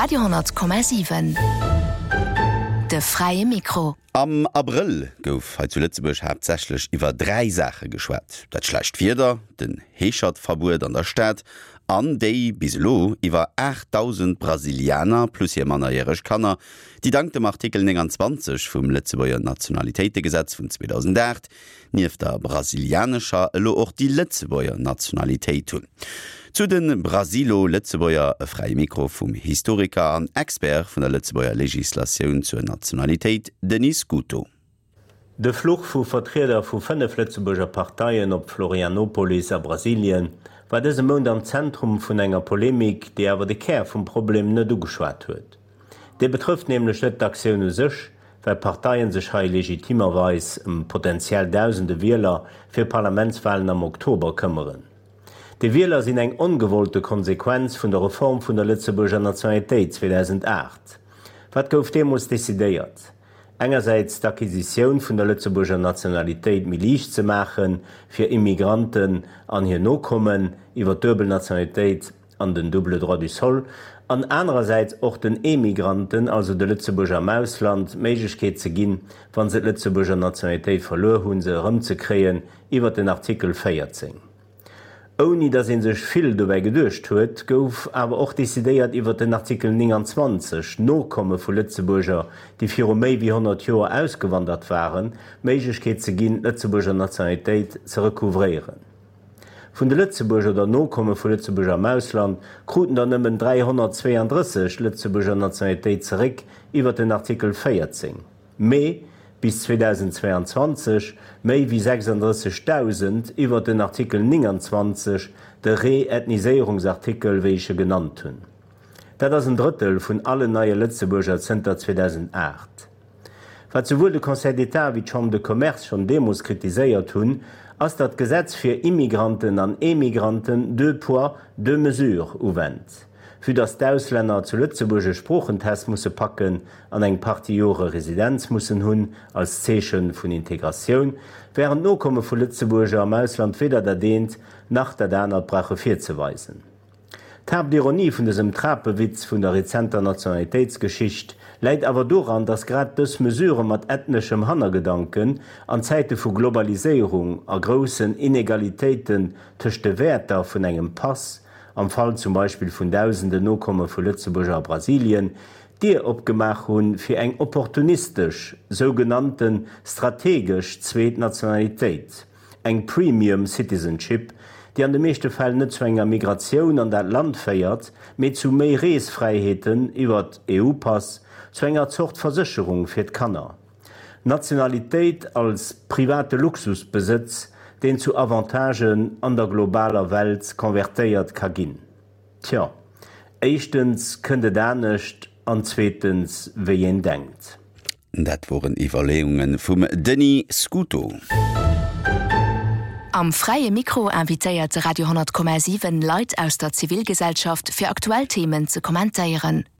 Radio 10,7 De fräie Mikro. Am Abrëll gouf hei zu Lëtzebuerg haaptsächlech iwwer 3 Saache geschwat, dat schlecht Wieder, den Heeschertverbuet an der Stad an déi bis elo iwwer 8.000 Brasilianer plus hir mannerjäreg Kanner, déi dank dem Artikel 29 vum Lëtzebuerger Nationalitéitegesetz vun 2008 nieft der brasilianescher elo och déi Lëtzebuerger Nationalitéit hunn. Zu de Brasilo-Lëtzebuerger e fräie Mikro vum Historiker an Expert vun der Lëtzebuerger Legislatioun zur Nationalitéit Denis Scuto. De Fluch vu Vertrieder vu 5 Lëtzebuerger Parteien op Florianopolis a Brasilien war dëse Mount am Zentrum vun enger Polemik, déi awer de Kär vum Problem net ugeschwat huet. Dee betrëfft nämlech net d'Aktioun u sech, well d'Parteien sech hei legitimerweis ëm potentiell dausende Wieler fir Parlamentswalen am Oktober këmmeren. Déi Wieler sinn eng ongewollte Konsequenz vun der Reform vun der Lëtzebuerger Nationalitéit 2008. Wat gouf deemools decidéiert? Engersäits d'Acquisitioun vun der Lëtzebuerger Nationalitéit méi liicht ze maache fir Immigranten an hir Nokommen iwwer d'duebel Nationalitéit, an den double droit du sol, an anerersäits och den Emigranten, also de Lëtzebuerger am Ausland, d'Méiglechkeet ze ginn, wa se d'Lëtzebuerger Nationalitéit verluer hunn, se erëmzekréien iwwert den Artikel 14. Ouni datt ee sech vill dobäi geduecht huet, gouf awer och decidéiert iwwert den Artikel 29, Nokomme vu Lëtzebuerger, déi viru méi wéi 100 Joer ausgewandert waren, d'Méiglechkeet ze ginn, d'Lëtzebuerger Nationalitéit ze recouvréieren. Vun de Lëtzebuerger oder Nokomme vu Lëtzebuerger am Ausland kruten der nëmmen 332 d'Lëtzebuerger Nationalitéit zeréck iwwer den Artikel 14, mee bis 2022 méi wéi 36.000 iwwer den Artikel 29, de Reethniséierungsartikel, wéi ech e genannt hunn. Dat ass en Drëttel vun allen neie Lëtzebuerger zënter 2008. Wat souwuel de Conseil d'État wéi d'Chambre de Commerce schonn deemools kritiséiert hunn, ass, datt d'Gesetz fir Immigranten an Emigranten deux poids, deux mesures uwennt. Vue datt d'Auslänner zu Lëtzebuerg e Sproochentest musse packen an eng Partie Jore Residenz mussen hunn als Zeeche vun Integratioun, wärend d'Nokomme vu Lëtzebuerger am Ausland weder dat eent nach dat anert brauche virzeweisen. D'Haaptironie vun dësem Trapewitz vun der rezenter Nationalitéitsgeschicht läit awer doran, datt grad dës Mesure mat ethneschem Hannergedanken an Zäite vu Globaliséierung a groussen Inegalitéiten tëscht de Wäerter vun engem Pass, am Fall zum Beispill vun dausenden Nokomme vu Lëtzebuerger a Brasilien, d'Dier opgemaach hu fir eng opportunistesch, sougenannte strategesch zweet Nationalitéit. Eng Premium Citizenship, déi an de meeschte Fäll net zu enger Migratioun an dat Land féiert, mee zu méi Reesfräiheeten iwwert EU-Pass, zu enger Zort Versécherung fir d'Kanner. Nationalitéit als private Luxusbesëtz, deen zu Avantagen an der globaler Welt konvertéiert ka ginn. Tjo, éischtens kënnt et anescht an zweetens wéi een denkt. Dat woren Iwwerleeunge vum Denis Scuto. Am Fräie Mikro invitéiert de Radio 10,7 Leit aus der Zivilgesellschaft fir aktuell Themen ze kommentéieren.